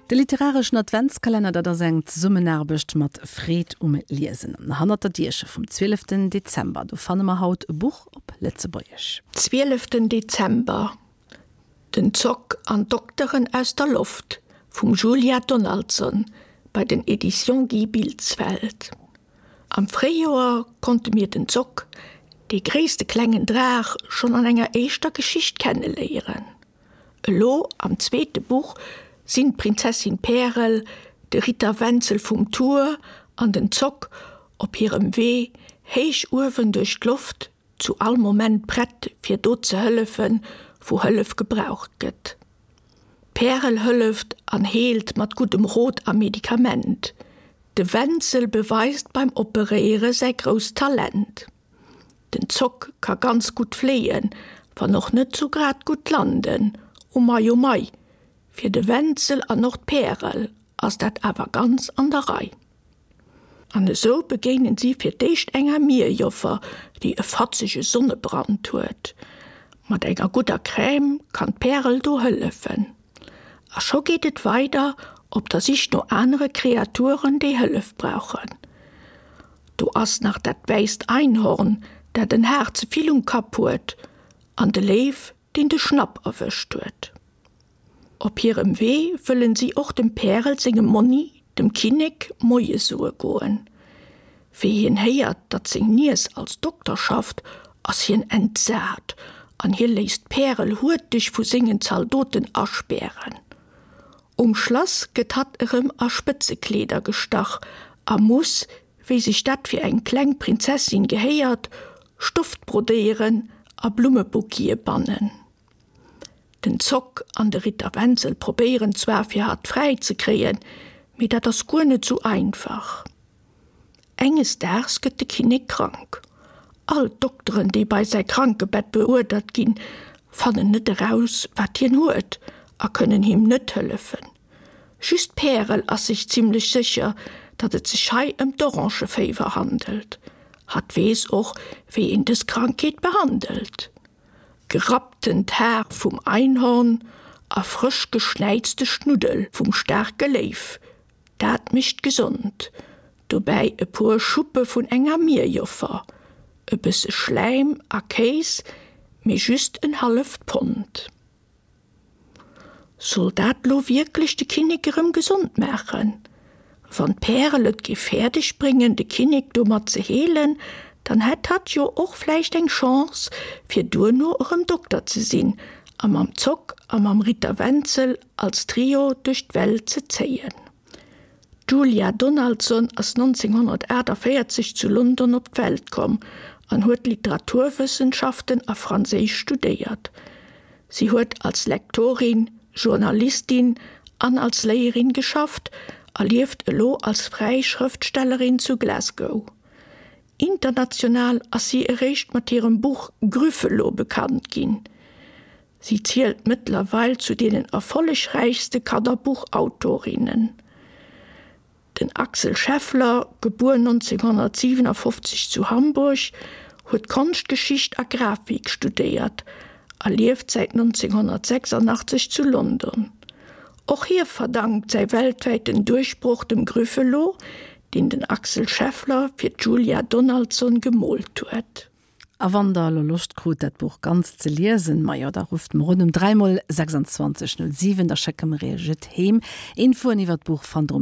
De literareschen Adventskalenner, dat ass eng Zesummenaarbecht mat Freed um Liesen. Hannert der Dierche vum 12 Dezember, do fanne mer haut e Buch op Lëtzebuergesch. Zwieleften Dezember, Den Zock an d'Dokteren aus der Loft vum Julia Donaldson bei den Editions Guy Bilsfeld. Am Fréijoer konnte mir den Zock, dee gréisste klengen Draach, schonn an enger éischter Geschicht kenneléieren. Elo am zweete Buch sinn d'Prinzessin Pärel, de Ritter Wenzel vum Tour an den Zock op hirem Wee héich uewen duerch d'Loft, zu all Moment prett fir do ze hëllefen, wou Hëllef gebraucht gëtt. D'Pärel hëlleft an heelt mat guddem Rot a Medikament. De Wenzel beweist beim Operéiere säi grousst Talent. Den Zock ka ganz gutt fléien, wann och net sou grad gutt landen. O mei, o mei, fir de Wenzel an och d'Pärel ass dat awer ganz an der Rei. An esou begéinen si fir d'éischt enger Mierjoffer, déi e fatzege Sonnebrand huet. Mat enger gudder Crème kann d'Pärel do hëllefen. A scho geet et weider op der Sich no anere Kreaturen, déi Hëllef brauchen. Do ass nach dat wäisst Einhorn, dat en Haar ze vill um Kapp huet, an de Léiw, deen de Schnapp erwëscht huet. Op hirem Wee wëllen si och dem Pärel sengem Monni, dem Kinnek, Moie soe goen. Wéi hien héiert, datt seng Niess als Dokter schafft, ass hien entsat an hie léisst d'Pärel huerteg vu sengen Zaldoten aspären. Um Schlass gëtt hatt erëm a Spëtzekleeder gestach a muss, wéi sech dat fir eng kleng Prinzessin gehéiert, Stoft brodéieren a Blummebouquete bannen. Den Zock an de Ritter Wenzel probéieren zwar fir hatt fräi ze kréien, mee dat ass guer net sou einfach. Enges Daags gëtt de Kinnek krank. All d'Dokteren, déi bei säi Krankebett beuerdert ginn, fannen net eraus, wat hien huet a kënnen him net hëllefen. Just d'Pärel ass sech zimmlech sécher, datt et sech hei ëm d'Orangeféiwer handelt. Hatt weess och, wéi een dës Krankheet behandelt. Gerapptent Haar vum Einhorn a frësch geschnäizte Schnuddel vum staarke Léiw, dat mécht gesond. Dobäi e puer Schuppe vun enger Mierjoffer, e bësse Schläim a Kéis, mee just en halleft Pond. Soll dat lo wierklech de Kinnek erëm gesond maachen? Wann d'Pärel et géif fäerdeg bréngen, de Kinnek domat ze heelen, dann hätt hatt jo och vläicht eng Chance, fir duerno erëm Dokter ze sinn a mam Zock a mam Ritter Wenzel als Trio duerch d'Welt ze zéien. D'Julia Donaldson ass 1948 zu London op d'Welt komm an huet Literaturwëssenschaften a Franséisch studéiert. Si huet als Lektorin, Journalistin an als Léierin geschafft a lieft elo als fräi Schrëftstellerin zu Glasgow. International ass si eréischt mat hirem Buch Grüffelo bekannt ginn. Si zielt mëttlerweil zu deenen erfollegräichste Kannerbuchautorinnen. Den Axel Scheffler, gebuer 1957 zu Hamburg, huet Konschtgeschicht a Grafik studéiert a lieft säit 1986 zu London. Och hie verdankt säi weltwäiten Duerchbroch dem Grüffelo, deen den Axel Scheffler fir d'Julia Donaldson gemoolt huet. A wann der elo Loscht krut, dat Buch ganz ze liesen, majo, da rufft mer un um 3 mol 26 07, da schécke mer iech et heem. Infoen iwwer d'Buch fannt der um.